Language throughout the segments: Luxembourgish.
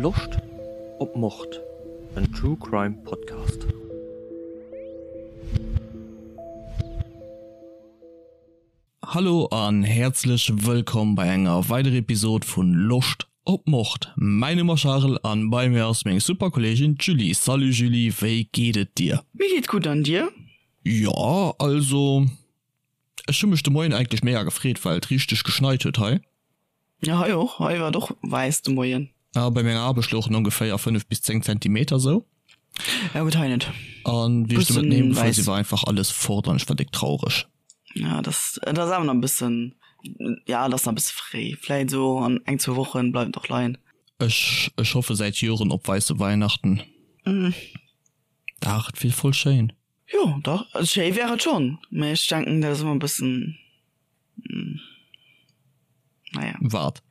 Loscht op Mord? En True Crime Podcast. Hallo an häerzlech wëllkomm bei enger weiderer Episode vun Loscht op Mord. Mäin Numm ass Charel an bei mir ass meng super Kolleegin d'Julie. Salut Julie, wéi geet et dir? Mir geet gutt an dir? Jo, also ech hu mech de Moien eigentlech mega gefreet, well et richteg geschneit huet hei. Jo, hei och, hei war et och wäiss de Moien. A bei menger Aarbecht louchen ongeféier 5 bis 10 Zentimeter sou. Ja gutt, hei net. An wéi ech de Mëtten heem gefuer si war einfach alles fort an ech war déck traureg. Ja, dat dat ass awer nach e bëssen, ja dat ass nach e bësse fréi. Vläit esou an eng, zwou Wochen bleift et och leien. Ech ech hoffe säit Joren op weisse Weihnachten. Dach, et wier voll schéin. Jo, dach, schéi wär et schonn, mä ech denken dat ass ëmmer e bëssen. Naja. Wat?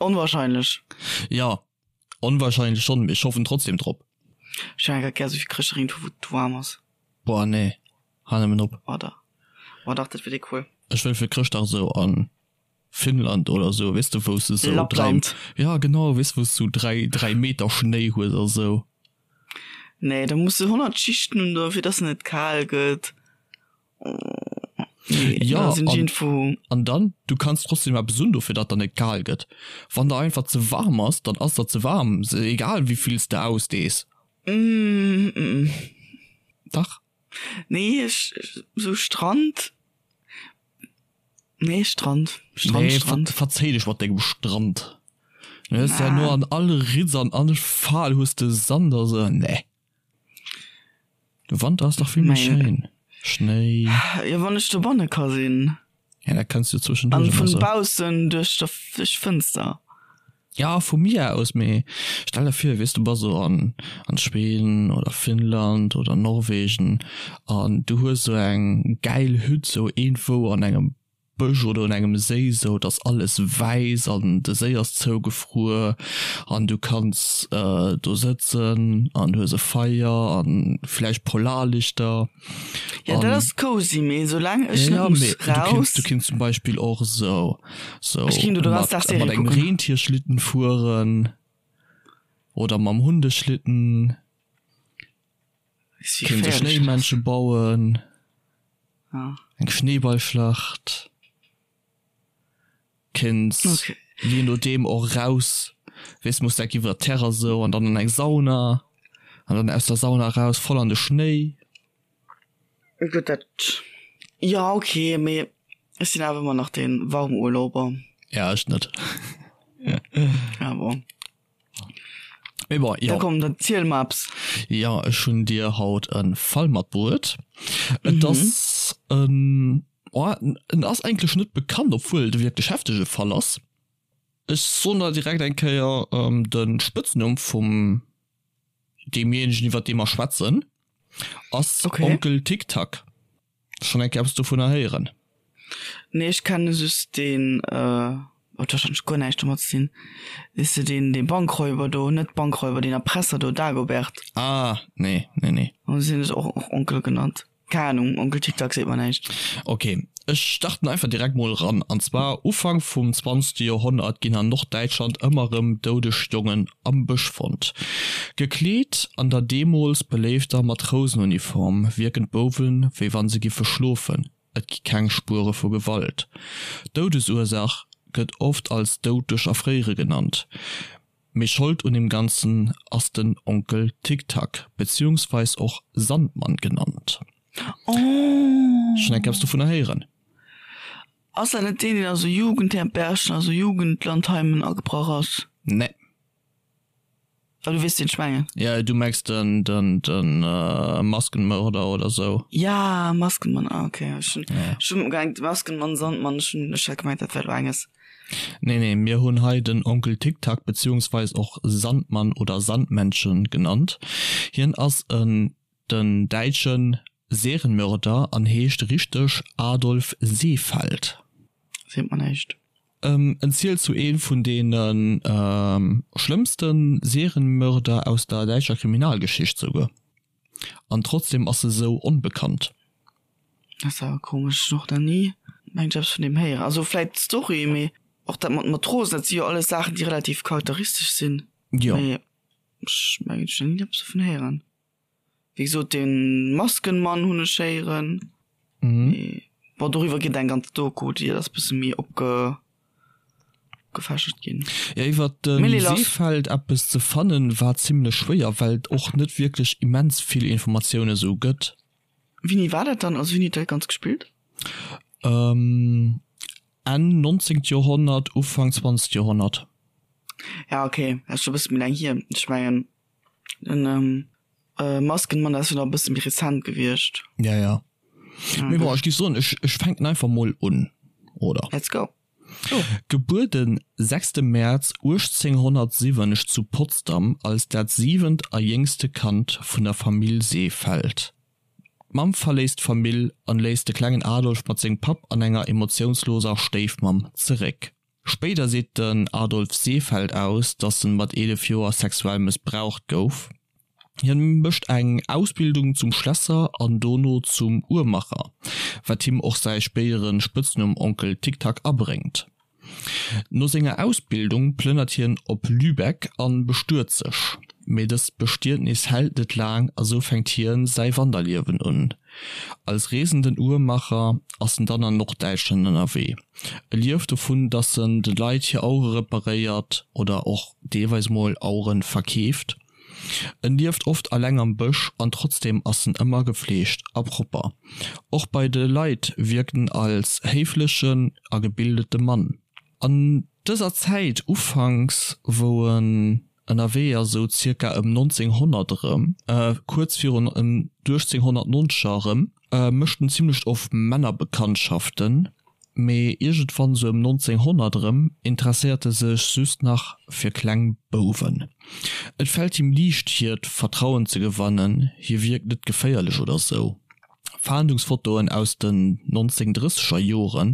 Onwahrscheinlech. Ja, onwahrscheinlech schonn, mee ech hoffen trotzdem drop. Ech hätt grad gär esou vill Chrëschtdag iergendwou wou et waarm ass. Boah nee, hal nëmmen op. Oh dach, oh dach, dat wier déi cool. Ech wëll fir Chrëschtdag esou an Finnland oder esou, weess de wou s de esou 3, Lappland. ja genau, weess wou s du 3, 3 Meter Schnéi hues a sou. Nee, da muss de 100 Schichten un do fir dass en net kal gëtt. Nee, ja, da sinn an, irgendwo... an dann du kanns trotzdem eppes un dofir datt der net kal gëtt. Wann der einfach ze warm ass, dann ass der ze warm, egal wéi vill s de ausdees. Mm, mm. Dach. Nee, ech, sou Strand. Nee, Strand. Strand, nee, Strand. Ver verzéi dech mat dengem Strand. Du hues ja no an all Ritz an all Fal hues de Sand a sou. Nee. De Wanter ass dach vill méi schéin. Schnéi. Jo, wann ech dobanne ka sinn. Ja, dat kanns du zwëschenduerch An vun baussen duerch der duerch d'Fënster. Ja, vu mir aus, mee stell der vir, weess du bass esou an an Schweden oder Finnland oder Norwegen an du hues esou eng gäil Hütt esou iergendwou an engem Bësch oder un engem Séi sou, et ass alles wäiss an de Séi ass zougefruer an du kanns do sëtzen an du hues e Feier an vläicht Polarlichter. Jo dat ass cozy, mee soulaang ech net muss raus. Du kinns zum Beispill och sou sou Ech kinnt do de ganzen Dag mat Serie engem kucken. Rentierschlitten fueren oder mam Hundeschlitten. Weess wéi Kéints e geféierlech dat ass. Schnéimännche bauen. Ah. Eng Schneeballschlacht. Kéints Okay. je nodeem och raus, weess muss dat iwwer d'Terrass esou an dann an eng Sauna an dann aus der Sauna raus voll an de Schnéi. Gutt dat, jo okay, mee ech sinn awer ëmmer nach dee Warmurlauber. Ja ech net. Ah bon. Mee bon, Da jo. komm, dann ziel mer eppes. Jo, ech hunn dir haut e Fall matbruet. Et ass en, oh, en ass eigentlech net bekannt, obwuel et e wierklech heftege Fall ass. Ech soen der direkt eng Kéier de Spëtznumm vum deemjéinegen, iwwer dee mer schwätzen, ass Okay. Onkel Tic-Tac. Schonn eng Kéier eppes dovunner héieren? Nee, ech kenne just deen, huet wahrscheinlech guer näischt domat ze dinn, weess de, deen, dee Bankräuber do, net Bankräuber, deen Erpresser do, Dagobert. Ah, nee, nee, nee. An si hunn sech och och Onkel genannt. Keng Ahnung, Onkel Tic-Tac seet mer näischt. Ok, ech starten einfach direkt mol eran. An zwar, Ufank vum zwanzegste Joerhonnert ginn an Norddäitschland ëmmer erëm doudeg Jongen am Bësch fonnt. Gekleet an der deemools beléifter Matrousenuniform wierken d'Bouwen, wéi wann se giffe schlofen, et gi keng Spuere vu Gewalt. D'Doudesursaach gëtt oft als Doud duerch Erfréiere genannt, mee Schold un deem Ganzen ass den Onkel Tic-Tac, beziehungsweis och Sandmann genannt. Schonn eng Kéier eppes dovunner héieren? Ass dat net deen, deen a sou Jugendherbergen a sou Jugendlandheimen agebrach ass? Nee. Ah, du weess, wien ech mengen. Ja, du mengs den, den, den Maskenmörder oder sou. Ja, Maskenmann, ah, okay. Ech hunn, ech hunn gemengt, Maskenmann, Sandmann, ech hunn, ech hat gemengt, dat wär elo enges. Nee, nee, mir hunn hei den Onkel Tic-Tac, beziehungsweis och Sandmann oder Sandmännchen genannt. Hien ass en den däitsche Serienmörder an heescht richteg Adolf Seefeld. Seet mer näischt. En zielt zu ee vun deene schlëmmste Serienmörder aus der däitscher Kriminalgeschicht souguer. An trotzdem ass e sou onbekannt. Dat ass awer komesch, ech hunn och nach ni mengt ech eppes vun deem héieren. Also vläit d'Story, mee och dat mat Matrosen, dat si jo alles Saachen déi relativ charakteristesch sinn. Jo. Mee ech mengen ech hunn nach ni eppes dovun héieren. Wéi gesot de Maskenmann hunn ech héieren. Mee bon doriwwer geet eng ganz Doku déi ass bësse méi opge opgefächert ginn. Jo iwwert de Seefeld eppes ze fannen war zimlech schwéier well et och net wierklech immens vill Informatioune sou gëtt. Wéini war dat dann? Also wéini huet dat Ganzt gespillt? Enn 19. Joerhonnert, Ufank 20. Joerhonnert. Ja okay, dat ass scho e bësse méi laang hier. Ech mengen den Maskenmann dat ass jo nach e bësse méi rezent gewiescht. Ja ja. Mee bon, ech géif soen, ech ech fänken einfach mol un, oder? Let's go. Gebuer den sechste Mäerz 1807 zu Potsdam als dat siwent a jéngste Kand vun der Famill Seefeld. D'Mamm verléisst d'Famill an léisst de klengen Adolf mat sengem Papp an enger emotiounsloser Stéifmamm zeréck. Spéider seet den Adolf Seefeld aus, datt en mat 11 Joer sexuell mëssbraucht gouf. Hien mécht eng Ausbildung zum Schlässer an dono zum Uhrmacher, wat him och säi spéidere Spëtznumm Onkel Tick-Tack abréngt. No senger Ausbildung plënnert hien op Lübeck an bestuet sech. Mee dëst Bestietnis hält net laang a sou fänkt hien säi Wanderliewen un. Als reesenden Uhrmacher ass en dann an Norddäitschland ënnerwee. E lieft dovun, dass en de Leit hir Auere reparéiert oder och deelweis mol Auere verkeeft. En lieft oft alleng am Bësch an trotzdeem ass en ëmmer gefleegt a propper. Och bei de Leit wierkt en als héiflechen a gebildete Mann. An dëser Zäit, ufanks wou en ënnerwee ass, esou zirka ëm 1900 erëm, kuerz virun ëm 1890 erëm, mécht en zimlech oft Männerbekanntschaften, mee iergendwann sou ëm 1900 erëm interesséiert e sech just nach fir kleng Bouwen. Et fält him liicht hiert Vertrauen ze gewannen, hie wierkt net geféierlech oder sou. Fahndungsfotoen aus den 1930er Jore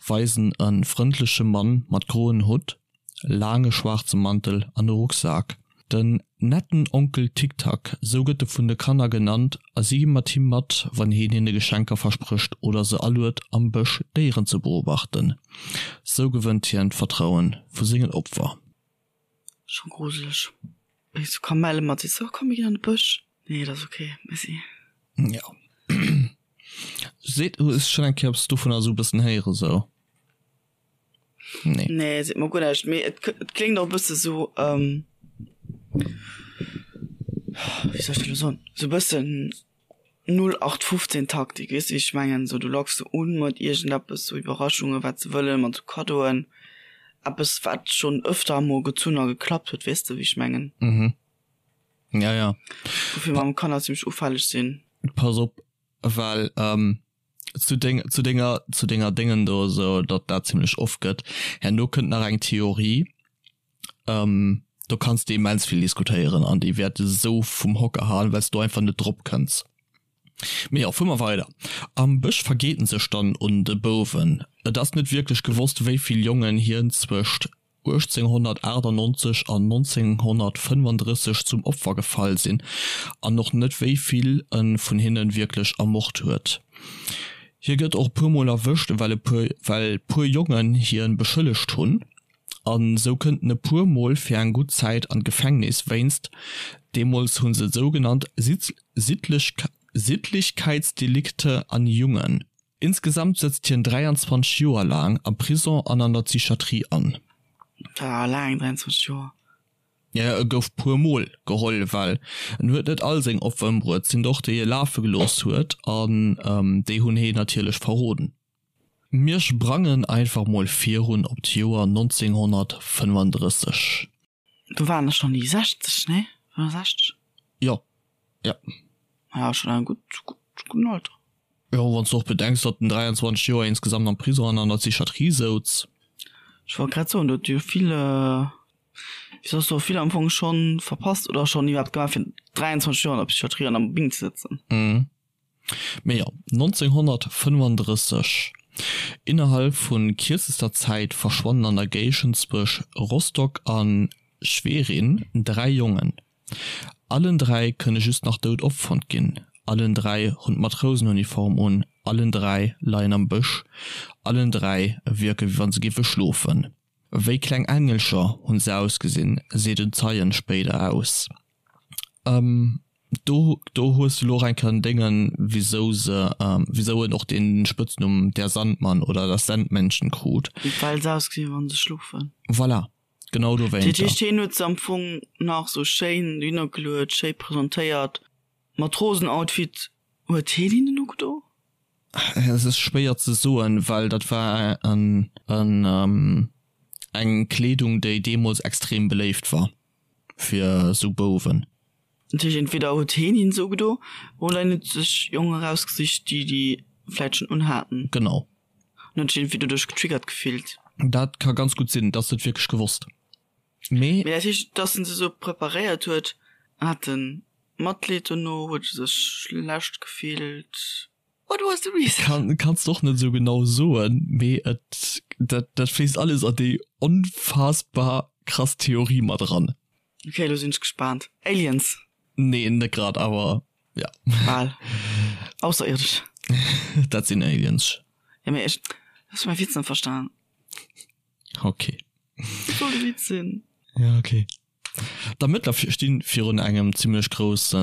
weisen e frëndleche Mann mat groen Hutt, laange schwaarze Mantel an e Rucksak. Den netten Onkel Ticktack, sou gëtt e vun de Kanner genannt a si gi mat him mat, wann heen hinne Geschenker versprécht oder se aluet am Bësch Déieren ze beobachten. Sou gewënnt hien d'Vertrauen vu sengen Opfer. Scho gruseleg. Wéi sou Kamelle mat sees, oh komm mir ginn an de Bësch. Nee, dat ass ok, merci. Jo. Seet, hues schonn eng Kéier eppes dovunner esou e bëssen héiere sou? Nee. Nee, seet mer guer näischt. Mee et, et kléngt och e bësse sou, ähm, wéi soll ech dat elo soen, sou e bëssen 0815 Taktik, weess de wéi ech mengen? Sou du locks se un mat iergendeppes, sou Iwwerraschungen, wat se wëllen, mat sou Kaddoen, eppes wat schonn ëfter emol gezunn a geklappt huet, weess de wéi ech mengen? Mhm. Ja, ja. Woufir mam Kanner zimmlech ufälleg sinn. Pass op, well ähm, zu deng, zu denger, zu denger Déngen do esou, datt dat zimmlech oft gëtt. Herno kënnt nach eng Theorie, ähm, do kanns de immens vill diskutéieren an déi wäert esou vum Hocker haen, well s du einfach net drop kënns. Mee jo, fuere mer weider. Am Bësch vergeet en sech dann un de Bouwen. Et ass net wierklech gewosst, wéi vill Jongen hien zwëscht 1898 an 1935 zum Opfer gefall sinn an och net wéi vill e vun hinne wierklech ermort huet. Hie gëtt och e puer Mol erwëscht well e puer well puer Jongen hien beschëllegt hunn an sou kënnt en e puer Mol fir eng gutt Zäit an d'Gefängnis wéinst, deemools hu se et sou genannt, Sittlichkeitsdelikte an Jungen. Insgesamt sëtzt hien 23 Joer laang am Prison an an der Psychiatrie an. Dat war laang, 23 Joer. Jo, e gouf puer mol geholl, well en huet net all seng Opfer ëmbruet, sinn och déi e lafe gelooss huet an déi hunn heen natierlech verroden. Mir sprangen einfach mol virun op d'Joer 1935. Do waren der schon déi 60, nee? 65? Jo, jo. Ja, schon en gutt, gutt, gudden Alter. Jo, wann s de och bedenks, datt en 23 Joer insgesamt am Prison an an der Psychiatrie souz. Ech wollt grad soen, do huet jo vill, wéi soss do vill am Fong schon verpasst oder schon iwwerhaapt gemaach, fir 23 Joer an der Psychiatrie an am Bing ze sëtzen. Mhm. Mee jo, 1935, innerhalb vu kierzester Zäit verschwannen an der Géigend zwësch Rostock a Schwerin 3 Jongen. Allen 3 kënne just nach dout opfonnt ginn, allen 3 hunn d'Matrousenuniform un, allen 3 leien am Bësch, allen 3 wierke wéi wann se géife schlofen. Wéi kleng Engelcher hunn se ausgesinn, seet en Zeien spéider aus. Do do hues de lo och eng Kéier en Déngen, wisou se, wisou en och dee Spëtznumm Der Sandmann oder das Sandmännchen krut. Well se ausgesinn, wann se schlofen. Voilà, genau Dat dowéinter. heescht, hien huet se am Fong nach sou schéin dohinner geluet, schéi presentéiert, Matrosenoutfit. Huet hien hinnen ugedo? Es ass schwéier ze soen, well dat war en en eng Kleedung, déi deemools extrem beléift war fir esou Bouwen. Dat heescht, entweder huet hien hinnen se ugedo oder hien huet sech Jongen erausgesicht, déi déi vläit schonn unhaten. Genau. An huet sech iergendwéi doduerch getriggert gefillt. Dat ka ganz gutt sinn, dass et wierklech gewosst. Mee. Mee dat heescht, dass en se esou preparéiert huet, hat en Matleed dono, huet e sech schlecht gefillt? What was the reason? Kann, kanns de och net esou genau soen, mee et, dat, dat fléisst alles an déi onfassbar krass Theorie mat eran. Ok, elo sinn ech gespaant. Aliens? Nee, net grad, awer ja. Bal. Ausserierdesch. Dat sinn Aliens. Ja, mee ech, hues du mäi Witz net verstan? Ok. Wat soll de Witz sinn? Ja, ok. D'Ermëttler sti virun engem zimmlech grousse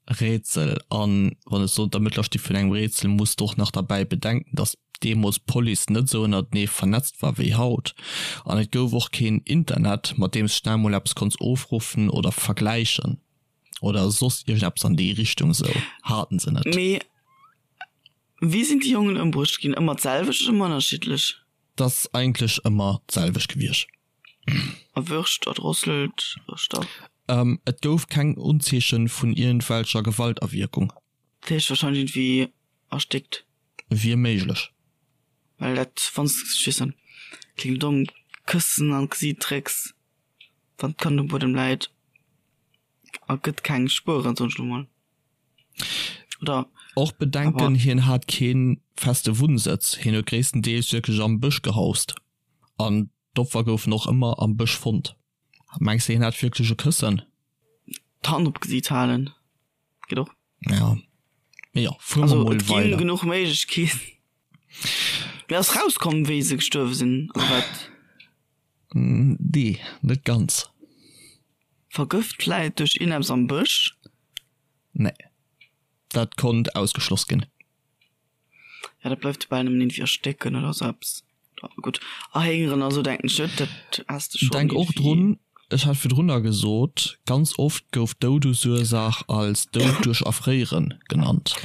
Rätsel. An wann ech soen, d'Ermëttler sti virun engem Rätsel, muss de och nach derbäi bedenken, datt deemools d'Police net esou ënnertenee vernetzt war wéi haut. An et gouf och keen Internet, mat deem s schnell mol eppes konns ofruffen oder vergläichen oder soss iergendeppes an déi Richtung. Esou haten se net. Mee wéi sinn déi Jongen ëmbruecht ginn? Ëmmer d'selwecht oder ëmmer ënnerschiddlech? 't ass eigentlech ëmmer d'selwecht gewiescht. Erwürscht, erdrosselt, erstach. Et gouf keng Unzeeche vun iergendwelcher Gewaltawierkung. Dat heescht wahrscheinlech iergendwéi erstéckt. Wier méiglech. Well dat, wann s, ech weess net, kléngt domm, Këssen an d'Gesiit drécks, wann d'Kand um Buedem läit, ergëtt keng Spueren, soen ech elo mol. Oder? Och bedenken, hien hat kee feste Wunnsëtz, hien huet gréisstendeels wierklech am Bësch gehaust an D'Opfer goufen och ëmmer am Bësch fonnt. Mengs de hien hat wierklech e Këssen? D'Hand op d'Gesiit halen geet och. Ja, mee jo, fuere mer Also mol et ginn weider. genuch Méiglechkeeten. Mee ass rauskomm wéi se gestuerwe sinn oder wat? Nee, net ganz. Vergëft vläit duerch iergendeppes am Bësch? Nee, dat konnt ausgeschloss ginn. Ja, dat bleift jo bal nëmmen iergendwéi erstécken oder sou eppes. Gutt, erhéngeren a sou denken ech net, dat has de schonn Denk och iergendwéi. drun, ech hat virdrunner gesot, ganz oft gouf d'Doudesursaach als Doud duerch Erfréieren genannt.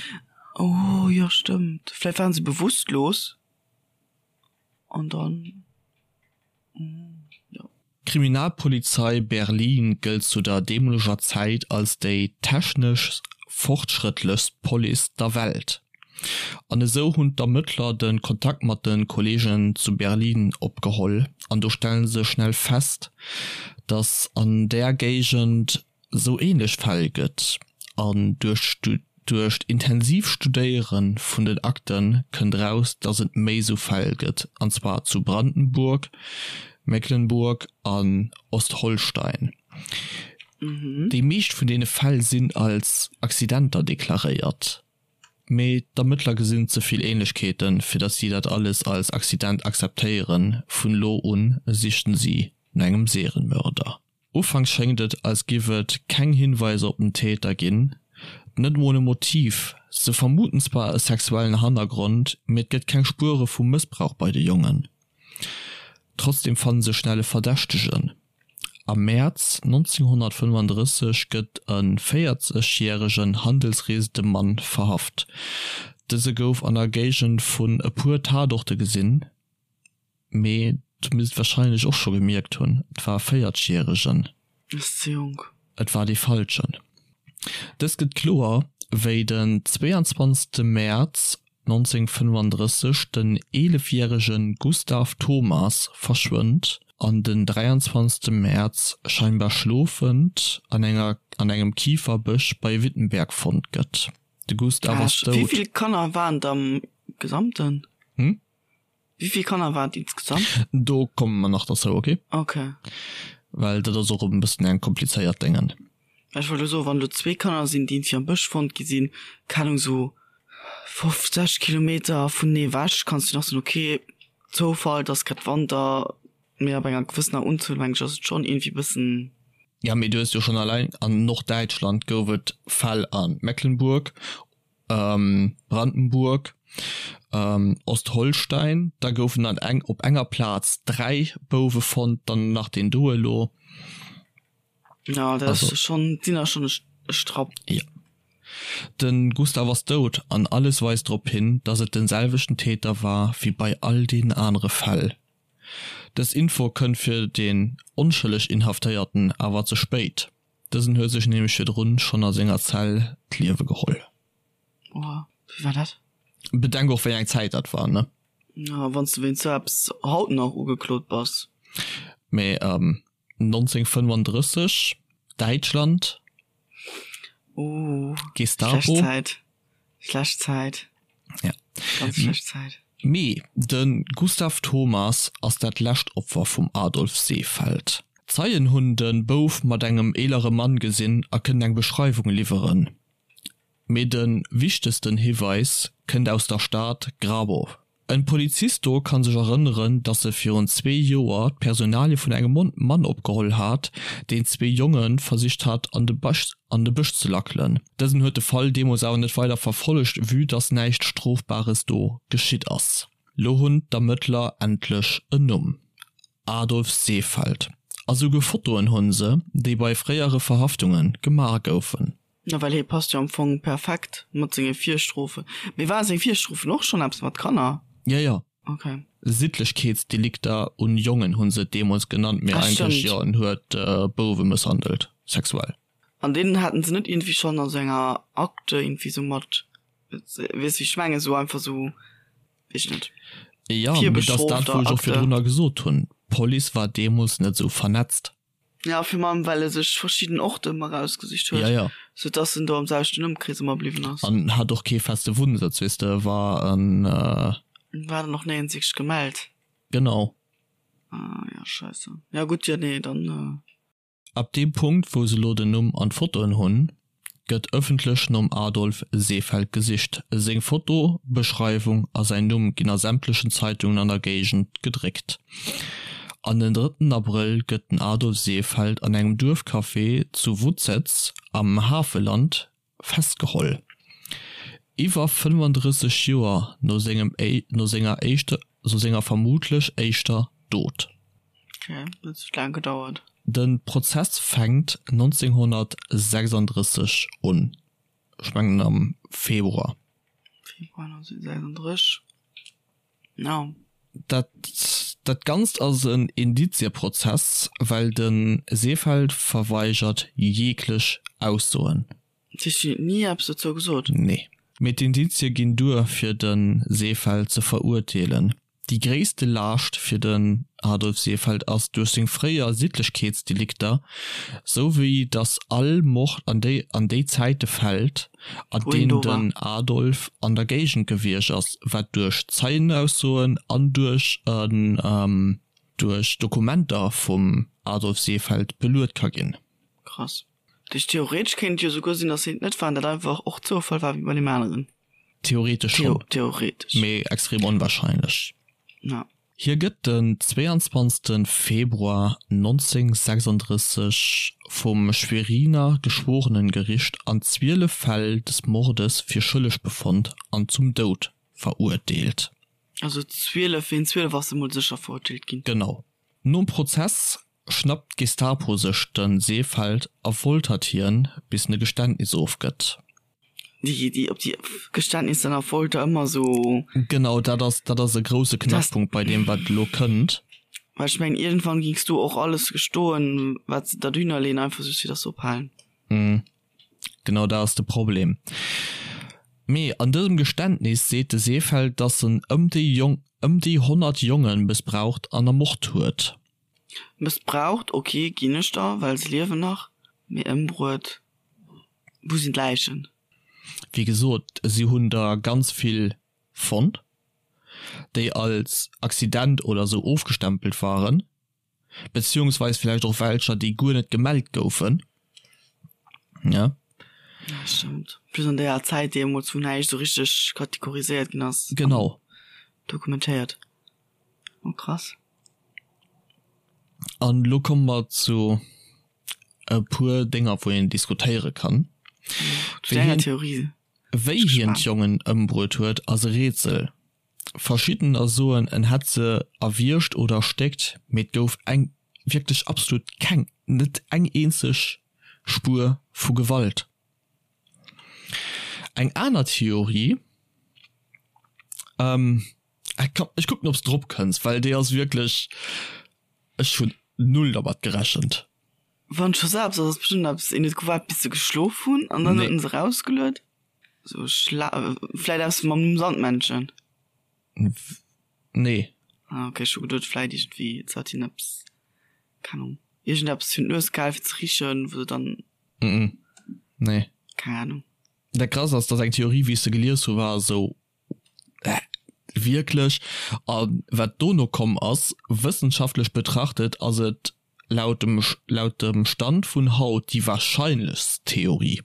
Oh jo, stëmmt. Vläicht waren se bewusstlos an dann, jo. D'Kriminalpolizei Berlin gëllt zu der deemoleger Zäit als déi technesch fortschrëttlechst Police der Welt. An esou hunn d'Ermëttler de Kontakt mat de Kolleegen zu Berlin opgeholl an do stelle se schnell fest, datt an där Géigend sou ähnlech Fäll gëtt an duerch duerch d'intensiv Studéiere vun den Akte kënnt raus, datt et méi sou Fäll gëtt, an zwar zu Brandenburg, Mecklenburg an Ostholstein. Déi meescht vun deene Fäll sinn als Accidenter deklaréiert, mee d'Ermëttler gesinn ze vill Ähnlechkeeten, fir datt si dat alles als Accident akzeptéieren. Vun elo un sichten si no engem Serienmörder. Ufanks schéngt et, als giff et keng Hinweiser op den Täter ginn, net mol e Motiv. Se vermuten zwar e sexuellen Hannergrond, mee et gëtt keng Spuere vu Mëssbrauch bei de Jongen. Trotzdeem fanne se schnell e Verdächtegen. Am Mäerz 1935 gëtt e 40 järegen handelsreesende Mann verhaft. Dëse gouf an der Géigend vun e puer Tatorte gesinn. Mee du misst et wahrscheinlech och scho gemierkt hunn, et war e Véierzegjäregen. Ass ze jonk. Et war dee Falschen. Dëst gëtt kloer, wéi den 22 Mäerz 1935 den eelefjärege Gustav Thomas verschwënnt an den 23 Mäerz scheinbar schlofend an enger an engem Kiferbësch bei Wittenberg fonnt gëtt. De Gustav ass dout. Wéi vill Kanner waren et am Gesamten? Hm? Wéi vill Kanner waren et insgesamt? Do komme mer nach derzou, ok? Ok. Well dat ass och e bëssen eng komplizéiert Déngen. Ech wollt elo soen, wann elo zwee Kanner sinn, déi iergendwéi am Bësch fonnt gi sinn, keng Ahnung, esou 50 Kilometer vunenee ewech, kanns du nach soen, ok, Zoufall, et ass grad Wanter. Mee ab enger gewëssener Unzuel, meng ech, ass et schonn iergendwéi bëssen. Ja, mee du hues jo schonn alleng an Norddäitschland gouf et Fäll a Mecklenburg, Brandenburg, Ostholstein, da goufen an eng op enger Plaz 3 Bouwe fonnt, dann nach deen do elo. Ja, dat ass schonn, sinn der schonn e Strapp. Jo. De Gustav ass dout an alles weist drop hin, dass et den selwechten Täter war wéi bei all deenen anere Fäll. Dës Info kënnt fir den onschëlleg Inhaftéierten awer ze spéit, dësen huet sech nämlech virdrun schonn a senger Zell d'Liewe geholl. Oha, wéi war dat? Bedenk och wéi eng Zäit dat war, ne? Ja, wann s de wéinst sou eppes haut nach ugeklot bass. Mee 1935, Däitschland, Ooh, Gestapo. Schlecht Zäit, schlecht Zäit. Ja. Ganz schlecht Zäit. Mee de Gustav Thomas ass dat lescht Opfer vum Adolf Seefeld. Zeien hunn de Bouf mat engem eelere Mann gesinn a kënnen eng Beschreiwung liwweren. Mee de wichtegsten Hiweis kënnt aus der Stad Grabow. En Polizist do kann sech erënneren, dass e virun zwee Joer d'Personalie vun engem Mann opgeholl hat, deen zwee Jonge versicht hat an de Bësch ze lackelen. Dësen huet de Fall deemools awer net weider verfollegt, vue dass näischt Strofbares do geschitt ass. Lo hunn d'Ermëttler endlech en Numm, Adolf Seefeld. A souguer Fotoen hunn se, déi bei fréiere Verhaftunge gemaach goufen. Na well hie passt jo am Fong perfekt mat senge Virstrofen. Mee ware seng Virstrofen och schonn eppes mat Kanner? Jo, jo. Ok. Siddlechkeetsdelikter un Jongen hu se et deemools genannt, mee Ah, eigentlech, stëmmt. jo, en huet Bouwe mësshandelt, sexuell. An deen haten se net iergendwéi schonn a sou enger Akte iergendwéi sou mat, weess wéi ech mengen, sou einfach sou, weess ech net, Jo, mee dat ass dat, virbestrofter wou ech och Akte. virdrunner gesot hunn, D'Police war deemools net sou vernetzt. Ja, virun allem well e sech verschidden Orte ëmmer erausgesicht huet, Ja, ja. sou dass en do am selwechten Ëmkrees ëmmer bliwwen ass. An hat och kee feste Wunnsëtz, weess de, war en. War dann och néierens wierklech gemellt. Genau. Ah ja, scheisse. Ja gutt, jo nee, dann. Ab deem Punkt, wou se lo den Numm an d'Fotoen hunn, gëtt ëffentlech nom Adolf Seefeld gesicht. Seng Foto, Beschreiwung a säin Numm ginn a sämtlechen Zeitungen an der Géigend gedréckt. An den drëtten Abrëll gëtt den Adolf Seefeld an engem Duerfcafé zu Wutzez am Havelland festgeholl. Iwwer 35 Joer no sengem no senger éischter no senger vermutlech éischter Dot. Ok, dat huet laang gedauert. De Prozess fänkt 1936 un, ech mengen am Februar. Februar 1936, ja. Dat dat Ganzt ass en Indizieprozess, well de Seefeld verweigert jeglech Aussoen. Dat heescht, hien huet ni eppes dozou gesot? Nee. Mee d'Indizie ginn duer fir de Seefeld ze verurteelen. Déi gréisste Laascht fir den Adolf Seefeld ass duerch seng fréier Siddlechkeetsdelikter, sou wéi datt all Mord an déi an déi Zäite fält, an Wou hien deenen do war. den Adolf an der Géigend gewiescht ass, wat duerch Zeienaussoen an duerch en duerch Dokumenter vum Adolf Seefeld beluet ka ginn. Krass. Dat heescht, theoretesch kéint et jo souguer sinn, datt hien et net war an dat einfach och Zoufall war wéi bei deem aneren. Theoretesch schonn, Theoretesch. mee extrem onwahrscheinlech. Ja. Hie gëtt den 22 Februar 1936 vum Schweriner Geschworenengericht an 12 Fäll des Mordes fir schëlleg befonnt an zum Doud verurteelt. Also 12, wéint 12 ass e mol sécher verurteelt ginn. Genau. Nom Prozess schnappt d'Gestapo sech de Seefeld a foltert hien, bis en e Geständnis ofgëtt. Déi, déi, op déi Geständnisser a Folter ëmmer esou. Genau, dat ass, dat ass e grousse Knackpunkt bei deem, wat elo kënnt. Well ech mengen, iergendwann gings du och alles gestoen, wat se der dohinner leeën, einfach just fir dass se ophalen. Genau dat ass de Problem. Mee an dësem Geständnis seet de Seefeld, dass en ëm déi Jong, ëm déi 100 Jonge mëssbraucht an ermort huet. Mëssbraucht, ok, ginn ech der, well se liewen nach, mee ëmbruet, wou sinn d'Läichen? Wéi gesot, si hunn der ganz vill fonnt, déi als Accident oder sou ofgestempelt waren, beziehungsweis villäicht och welcher, déi guer net gemellt goufen. Ja. Ja, stëmmt. Plus an deeër Zäit deemools, wou näischt sou richteg kategoriséiert ginn ass. Genau. Dokumentéiert. Oh krass. An elo komme mer zu e puer Dénger, wou een diskutéiere kann. Zu denger Theorie. Wéi hien d'Jongen ëmbruet huet, ass e Rätsel. Verschiddener soen, en hätt se erwiergt oder erstéckt, mee et gouf eng, wierklech absolut keng, net eng eenzeg Spuer vu Gewalt. Eng aner Theorie, ech kucken ob s de drop kënns, well déi ass wierklech, ech hunn null dermat gerechent. Wann scho se eppes ass, ass bestëmmt eppes, een huet gewaart bis se geschlof hunn an dann huet en se erausgeluet. Sou schla, vläit eppes mam Sandmännchen? Nee. Ah ok, ech hu geduet vläit iergendwéi se hat hien eppes, keng Ahnung, iergendeppes virun d'Nues gehal fir ze richen, wou se dann. Mm nee. Keng Ahnung. Dat Krasst ass, dass eng Theorie wéi ech se gelies hu war esou, Hä, wierklech? A wat dono komm ass, wëssenschaftlech betrachtet ass et laut dem laut dem Stand vun haut déi wahrscheinlechst Theorie.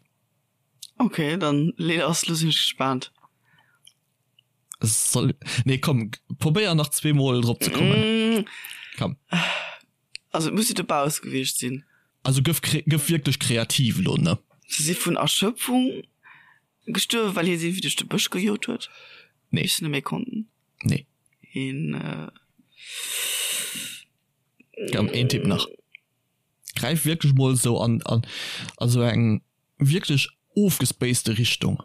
Ok, dann lee lass, lo sinn ech gespaant. Soll, nee komm, probéier nach zweemol drop ze kommen. Komm. Also et muss jo dobausse gewiescht sinn. Also gëff gëff wierklech kreativ elo, ne? Se si vun Erschöpfung gestuerwen, well hie si wéi duerch de Bësch gejot huet? Nee. Bis se net méi konnten? Nee. Een. Komm, een Tipp nach. Gräif wierklech mol esou an an a sou eng wierklech ofgespacete Richtung.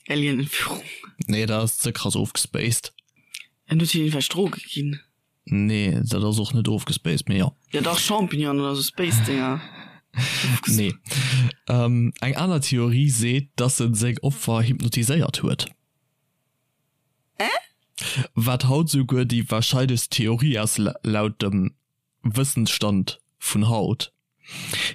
Alien-Entführung. Nee, dat ass ze krass ofgespaced. En huet hinnen vläicht Droge ginn. Nee, dat ass och net ofgespaced, mee jo. Ja dach, Champignonen oder sou Space-Dinger. Nee. Eng aner Theorie seet, dass en seng Opfer hypnotiséiert huet. Äh? Wat haut souguer déi warscheinlechst Theorie ass, laut dem Wëssensstand vun haut.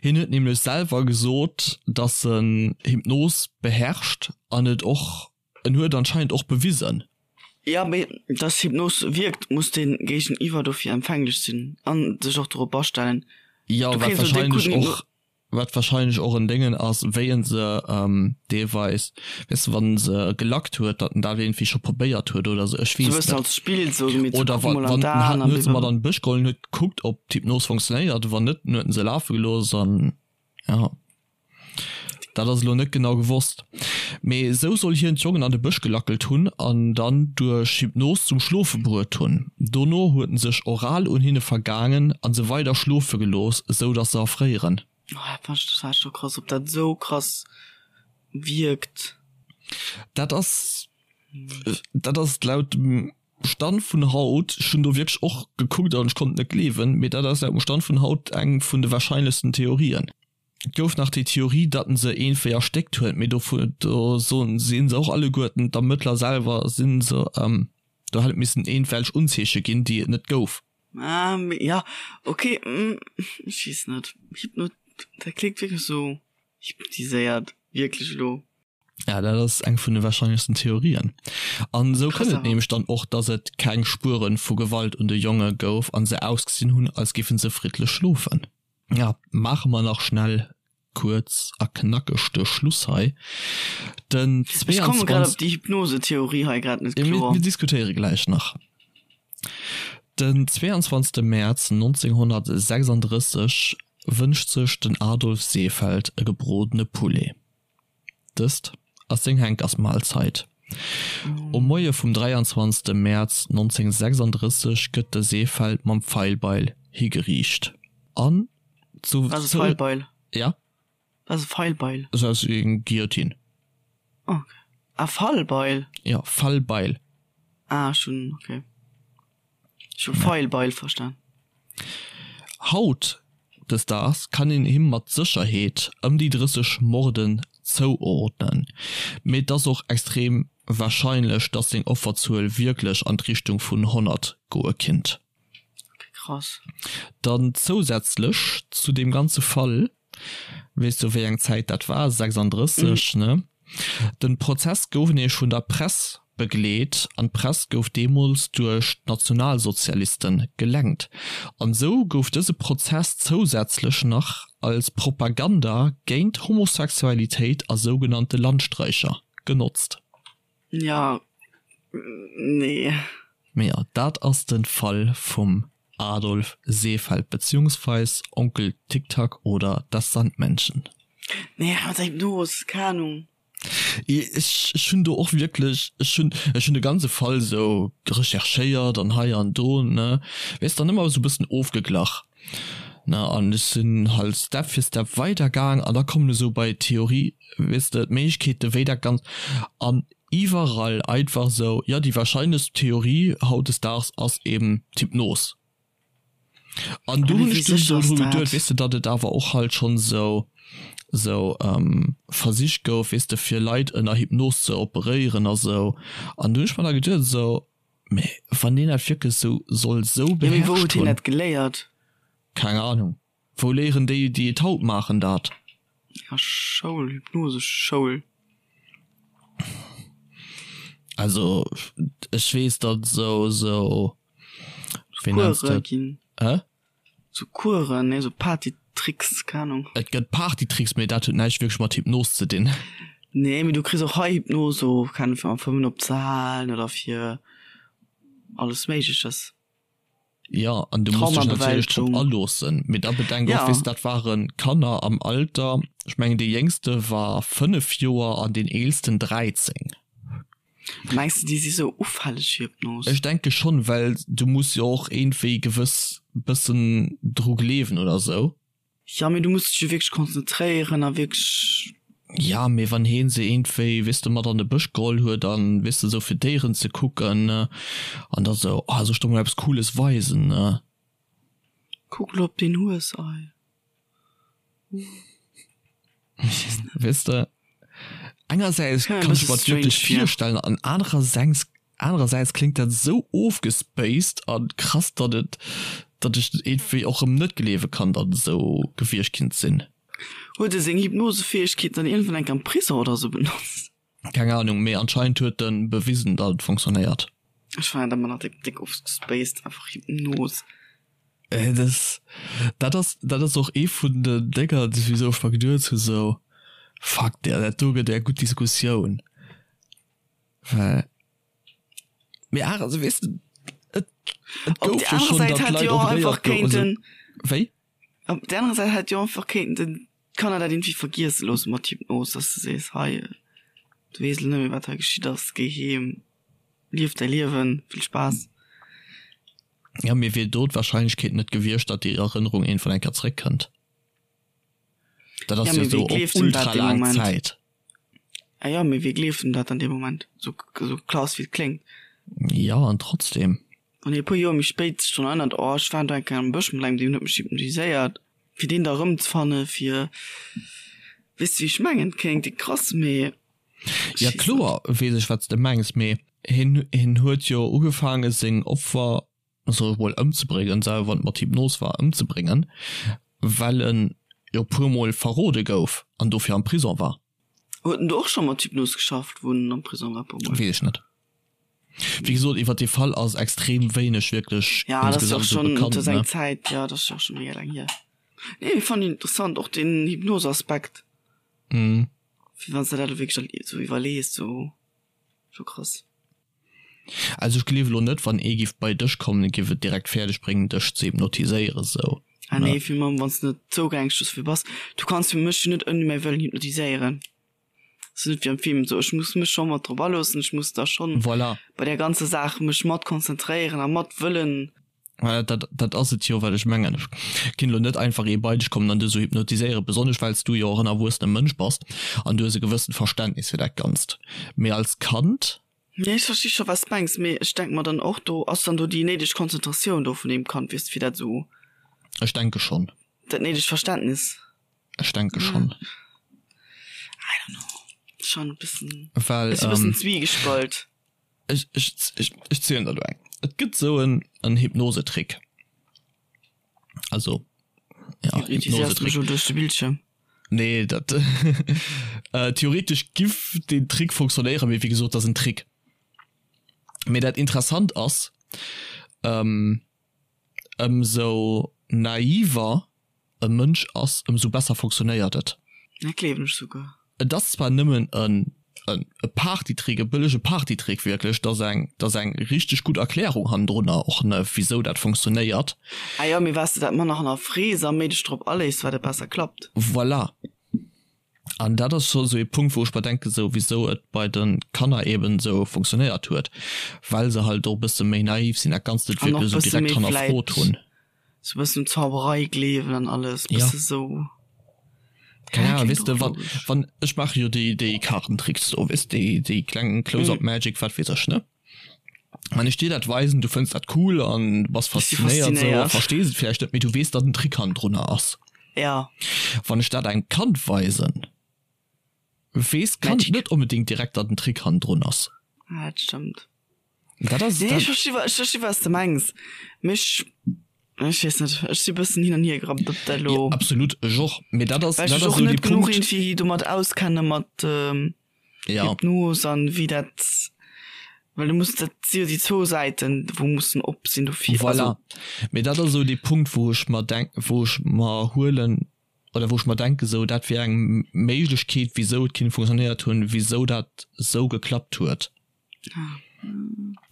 Hien huet nämlech selwer gesot, dass en Hypnos beherrscht an et och, en huet anscheinend och bewisen. Jo, mee dass Hypnos wierkt, muss den Géigeniwwer dofir empfänglech sinn an sech och dorop astellen. Jo, wat wahrscheinlech och Wat wahrscheinlech och en Déngen ass, wéi en se deelweis, weess de, wann en se gelackt huet, datt en dat iergendwéi scho probéiert huet oder sou, ech weess net. Sou e bëssen als Spill, sou mee ze Oder kucken wa mol an wann en d'Aen hat, an huet se mat blablabla. an de Bësch geholl en huet gekuckt, ob d'Hypnos funktionéiert, wann net, dann huet en se lafe gelooss an jo. Dat ass elo net genau gewosst. Mee esou soll hien d'Jongen an de Bësch gelackelt hunn an dann duerch Hypnos zum Schlofe bruet hunn. Dono huet en sech oral un hinne vergaangen an se weider schlofe gelooss, esou datt se erfréieren. Oh, dat fannen ech total scho krass, ob dat esou krass wierkt. Dat ass, dat ass laut dem Stand vun haut, ech hunn do wierklech och gekuckt an ech konnt et net gleewen, mee dat ass laut dem Stand vun haut eng vun de warscheinlechsten Theorien. Et gouf nach déi Theorie, datt en se eenféi erstéckt huet, mee dovu do soen si se och alleguerten, d'Ermëttler selwer si se, do hätt et missen eenfwelch Unzeeche ginn, déi et net gouf. Ah, mee ja, ok, ech weess net, Hypno, dat kléngt wierklech sou hypnotiséiert, wierklech elo. Ja, dat ass eng vun de warscheinlechsten Theorien. An esou kënnt et nämlech dann och, datt et keng Spuere vu Gewalt un de Jonge gouf an se ausgesinn hunn, als géife se friddlech schlofen. Ja, maache mer nach schnell kuerz a knackeg de Schluss hei. Den Ech komme grad op déi Hypnose-Theorie hei grad net kloer. Mir diskutéiere gläich nach. Den 22. Mäerz 1936 wënscht sech den Adolf Seefeld e gebrodene Poulet. Dëst ass seng Henkersmahlzeit. Um Moie vum 23 Mäerz 1936 gëtt de Seefeld mam Feilbeil higeriicht an zu. Wat ass e Feilbeil? Ja? Wat ass e Feilbeil? Sou aus wéi eng Guillotine. Ok. Ah, Fallbeil? Jo, Fallbeil. Ah, ech hunn, ok. Ech hu Feilbeil verstan. Haut des Daags kann een him mat Sécherheet ëm déi 30 Morden zouordnen, mee et ass och extrem warscheinlech, dass seng Offerzuel wierklech an d'Richtung vun 100 goe kinnt. Ok, krass. Dann zousätzlech zu deem ganze Fall Weess du wéi eng Zäit dat war? 36, ne? Den Prozess gouf nämlech vun der Press begleet an d'Press gouf deemools duerch d'Nationalsozialisten gelenkt. An esou gouf dëse Prozess zousätzlech nach als Propaganda géint Homosexualitéit a sougenannte Landstreicher genotzt. Ja, nee. Mee jo, dat ass de Fall vum. Adolf Seefeld beziehungsweis Onkel Tick-Tack oder das Sandmännchen. Nee, mat der Hypnos, keng Ahnung. Ech ech hunn do och wierklech, ech hunn ech hunn de ganze Fall sou recherchéiert an hei an do, ne, weess dann ëmmer sou bëssen ofgeglach, ne, an ech sinn halt Step fir Step weider gaang an da kommen esou bei d'Theorie, weess de, d'Méiglechkeete wéi dat Ganzt an iwwerall einfach sou, jo déi wahrscheinlechst Theorie hautdesdaags ass eben d'Hypnos. An do hunn ech dunn esou dru geduet, weess de, datt et awer och halt schonn esou, esou Versich gouf, weess de, fir Leit ënner Hypnos ze operéieren a sou. An do hunn ech mer da geduet esou, mee wann deen dat wierklech esou soll esou beherrscht hunn. Jo, mee wou huet hien dat geléiert? Keng Ahnung. Wou léieren déi, déi et haut maachen, dat? Ja, Schoul, Hypnoseschoul. Also, ech weess, datt esou, esou, wéi nenns de dat? Ginn. Hä? Sou Kueren, nee, sou Partytricks, keng Ahnung. Et gëtt Partytricks, mee dat huet näischt wierklech mat Hypnos ze dinn. Nee, mee du kriss och hei Hypnos, sou, keng Ahnung, fir am Fëmmen opzehalen oder fir alles Méigleches. Jo, an du muss dech natierlech drop aloossen. Mee da bedenk och, weess de, dat ware Kanner am Alter, ech mengen dee Jéngste war 5 Joer an deen Eelsten 13. Mengs de, déi si sou ufälleg fir Hypnos? Ech denke schonn, well du muss jo och iergendwéi gewëss bëssen dru gleewen oder sou. Jo, mee du muss dech jo wierklech konzentréieren a wierklech. Jo, mee wann heen se iergendwéi, weess de, mat an de Bësch geholl huet an, weess de, sou fir Déieren ze kucken an da sou, oh, soll ech der mol eppes Cooles weisen? Kuck lo op deen Hues, ei. Weess de, engersäits kann ech mer et wierklech virstellen an anerersäits Anerersäits kléngt dat esou ofgespaced a krass, datt et, datt ech iergendwéi och erëm net gleewe kann, datt et esou gewiescht kinnt sinn. Huet e seng Hypnosefäegkeeten dann iergendwann eng Kéier am Prison oder esou benotzt? Keng Ahnung, mee anscheinend huet e bewisen, datt et funktionéiert. Ech fannen dat ëmmer nach déck, déck ofgespaced, einfach Hypnos. Dat, dat ass, dat ass och ee vun den Dénger, wisou ech mer geduet hu sou, fuck, dat do gëtt eng gutt Diskussioun. Well, mee awer, also weess de, et, et gouf jo schonn, datt Leit operéiert goufen. Wéi? Op der anerer Säit hätt jo einfach kéinten den d'Kanner dat irgendwie vergiesse loosse mat Hypnos, dass de sees, hei, du weess elo net méi wat hei geschitt ass, géi heem, lief däi Liewen, vill Spaass. Ja, mee wier do d'Wahrscheinlechkeet net gewiescht, datt déi Erënnerung iergendwann eng Kéier zréckkënnt? Dat ass jo esou op ultra laang Zäit. Ah jo, mee wie gleeft em dat an deem Moment? Sou sou klass wéi et kléngt. Jo, an trotzdem. Wann hie e puer Joer méi spéit sech drun erënnert, oh ech war do eng Kéier am Bësch mat engem, deen huet mech hypnotiséiert, fir deen da erëmzefanne fir, weess de wéi ech mengen? Kléngt déck krass, mee ech Ja weess net. kloer weess ech wat s de mengs, mee hien hien huet jo ugefaange seng Opfer soll ech mol ëmzebréngen, selwer wann et mat Hypnos war, ëmzebréngen, well en jo puer mol verrode gouf an dofir am Prison war. Huet en do och scho mat Hypnos geschafft, wou en am Prison war, puer mol? Weess ech net. Wéi gesot, iwwer dee Fall ass extrem wéineg wierklech Ja, dat ass jo och schonn, dat ass eng Zäit, jo, dat ass jo och scho mega laang hier. Nee, mee fannen interessant, och deen Hypnos-Aspekt. Mhm. Fir wann s de dat elo wierklech esou iwwerlees, sou, scho krass. Also ech gleewe lo net wann ee giff bei dech kommen e giff et direkt fäerdeg bréngen dech ze hypnotiséieren sou. Ah nee, fir mam wanns de net zougänglech dofir bass. Du kanns jo mech jo net ouni mäi Wëllen hypnotiséieren. Ass jo net wéi am Film sou, ech muss mech scho mat drop aloossen, ech muss da schonn Voilà. bei där ganzer Saach mech mat konzentréieren a mat wëllen. Voilà, dat dat ass et jo wat ech mengen. Ech kinn lo net einfach ee bei dech kommen an dech sou hypnotiséieren, besonnesch well s du jo och en erwuessene Mënsch bass an du hues e gewëssent Verständnis fir dat Ganzt. Mee als Kand Nee, ech versti scho wat s mengs, mee ech denk mer dann och, do ass dann do déi néideg Konzentratioun do vun deem Kand, weess de, fir dat esou. Ech denke schonn. Dat néidegt Verständnis. Ech denke schonn. I don't know, schon e bëssen, Well, ech si e bëssen zwiegespalt. Ech, ech, ech, ech zielen der elo eng. Et gëtt esou en, en Hypnosetrick. Also, ja, Hypnosetrick. Duerch de Bildschirm? Nee, dat äh, theoretisch giff den Trick funktionéieren, mee wéi gesot, dat ass en Trick. Mee dat interessant ass, ähm, ëmsou naiver e Mënsch ass, ëmsou besser funktionéiert et. Dat gleewen ech souguer. Et ass zwar nëmmen e. e Partytrick, e bëllege Partytrick wierklech, dat ass eng, dat ass eng richteg gutt Erklärung hannendrunner och, ne, wisou dat funktionéiert. Ah jo, mee wat s de dat manner hannerfrees a méi dech drop aléiss, wat et besser klappt. Voilà. An dat ass scho sou ee Punkt, wou ech mer denken, sou wisou et bei de Kanner eben sou funktionéiert huet, well se halt och e bësse méi naiv sinn, dat Ganzt net An och wierklech sou bësse direkt méi hannerfrot vläit hunn. sou bëssen un Zauberei gleewen an alles, Ja. bësse sou. Keng Ja, Ahnung, kléngt weess de, och wann, logesch. wann, ech maache jo déi, déi Kaartentricks do, weess déi, déi kleng Close-up Magic, wat weess ech, ne? Wann ech dir dat weisen, du fënns dat cool an du bass Ech si faszinéiert sou a faszinéiert. verstees et vläicht net, mee du weess, datt en Trick hannendrunner ass. Ja. Wann ech dat engem Kand weisen, weess d'Kand Magic. net onbedéngt direkt, datt en Trick hannendrun ass. Ja, dat stëmmt. Dat ass, Nee, dat. ech versti, ech versti wat s de mengs. Mee ech, ech weess net, ech si bëssen hin an hier gerappt, ob dat Ja, elo. absolut, ech och. Mee dat ass, Well ech dat mech ass och esou dee net genuch Punkt. iergendwéi domat auskenne mat Ja. Hypnos an wéi dat, well du muss, dat si jo déi zwou Säiten, wou mussen op sinn dofir. Voilà. Also. Mee dat ass esou dee Punkt, wou ech mer denk, wou ech mer huelen oder wou ech mer denken, esou dat wier eng Méiglechkeet, wisou et kinnt funktionéiert hunn, wisou dat esou geklappt huet.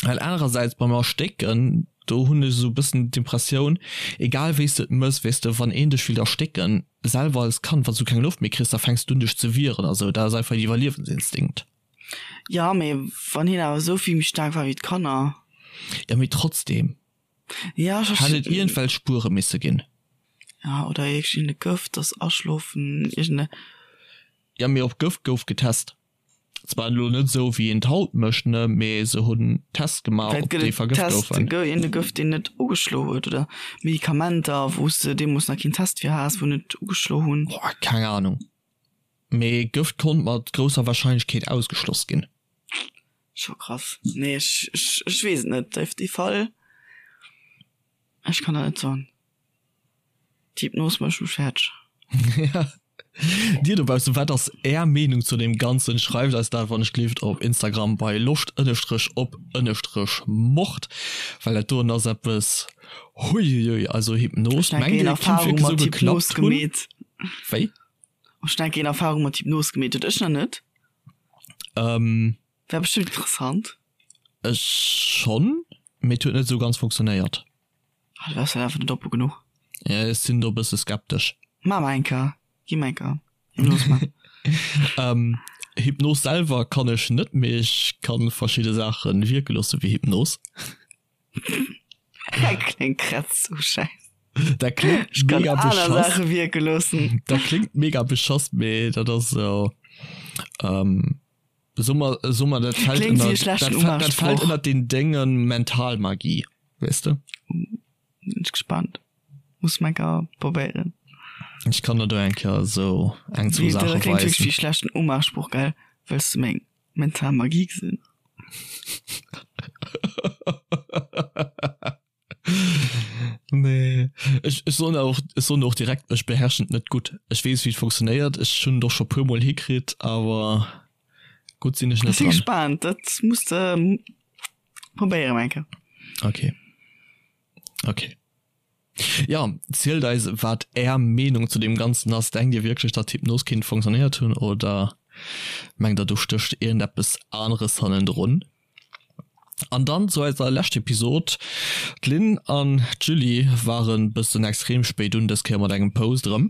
Well anerersäits beim Erstécken, do hunn ech esou e bëssen d'Impressioun, egal wéi s de et mëss, weess de, wann een dech willt erstécken, selwer als Kand, wann s du keng Loft méi kriss, da fänks du un dech ze wieren a sou, dat ass einfach een Iwwerliewensinstinkt. Jo, mee wann hien awer esou vill méi staark war wéi d'Kanner. Jo, mee trotzdem Ja, ech hätt et iergendwelch Spuere misse ginn. Ja, oder iergendee Gëft, dass aschlofen, iergende. Jo, mee op Gëft gouf getest. Zwar elo net esou wéi een et haut mécht, ne, mee se hunn Tests gemaach, Vläit ob gëtt déi et vergëft Test, goufen. gë een Gëft deen net ugeschlo huet oder Medikamenter wou s de deemools nach keen Test fir has, wou net ugeschlo hunn. Boah, keng Ahnung. Mee Gëft konnt mat grousser Warscheinlechkeet ausgeschloss ginn. Scho krass. Nee, ech, ech, ech weess et net. Dee, dee Fall, ech kann dat net soen. D'Hypnos mécht mech fäerdeg. Ja. Dir dobaussen, wat ass Är Meenung zu deem Ganzen? Schreift eis dat wann ech gleeft op Instagram bei loscht ënnestrech op ënnestrech mord, well dat doen ass eppes, huiuiui, also Hypnos, Ech mengt denken Dir een et kinnt Erfahrung wierklech esou mat Hypnos geklappt hunn? gemeet. Wéi? Ech denken een Erfahrung mat Hypnos gemeet huet. Ech nach net. Ähm. Wär bestimmt interessant. Ech schonn, mee et huet net esou ganz funktionéiert. Ah, du waars halt einfach net oppe genuch. Ja, ech sinn do e bësse skeptesch. Maa mer eng Kéier. Gi mer eng Kéier. Hypnos man. Ähm, Hypnos selwer kann ech net, mee ech kann verschidde Saache wierke loosse wéi Hypnos. Dat kléngt grad sou schäiss. Dat kléngt Ech kann mega aner beschass. Saache wierke loossen. Dat kléngt mega beschass, mee dat ass esou, ähm, so mer, so mer, dat fällt Kléngt wéi ënner, e schlechten dat, dat fällt Umgangssproch. ënner den Déngen Mentalmagie, weess de? Sinn ech gespannt. Muss mer eng Kéier probéieren. Ech kann der do eng Kéier esou eng, zwou Wéi, dat Saache kléngt wierklech weisen. wéi e schlechten Umgangssproch, gell? Wëlls de meng Mentalmagie gesinn? Nee. Ech, ech soen och, ech soen och direkt, ech beherrschen et net gutt. Ech weess, wéi et funktionéiert, ech hunn et och scho puer mol hikritt, awer gutt sinn ech Ech net si dran. gespaant, dat muss de probéieren eng Kéier. Okay. Okay. Ja, zielt eis, wat Är Meenung zu deem Ganzen ass. Denkt Dir wierklech, datt Hypnos kinnt funktionéiert hunn oder mengt Der, do stécht iergendeppes aneres hannendrun? An dann zu eiser lescht Episod. D'Lynn an d'Julie waren bëssen extrem spéit un, dës Kéier mat engem Post erëm.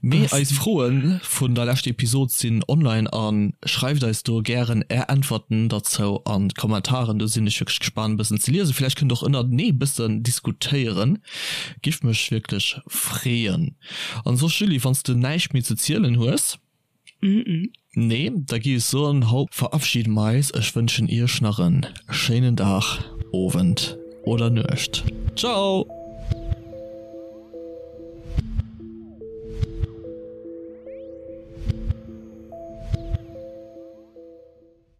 Mee eis Froen vun der lescht Episod sinn online an schreift eis do gären är Äntwerten derzou an d'Kommentaren. Do sinn ech wierklech gespaant e bëssen ze liesen. Villäicht kënnt och ënnertenee bëssen diskutéieren. Giff mech wierklech freeën. An soss Julie, wanns de näischt méi ze zielen hues? Nee, da gi ech soen, haut verabschiede mer eis. Ech wënschen iech nach en schéinen Dag, Owend oder Nuecht. Ciao!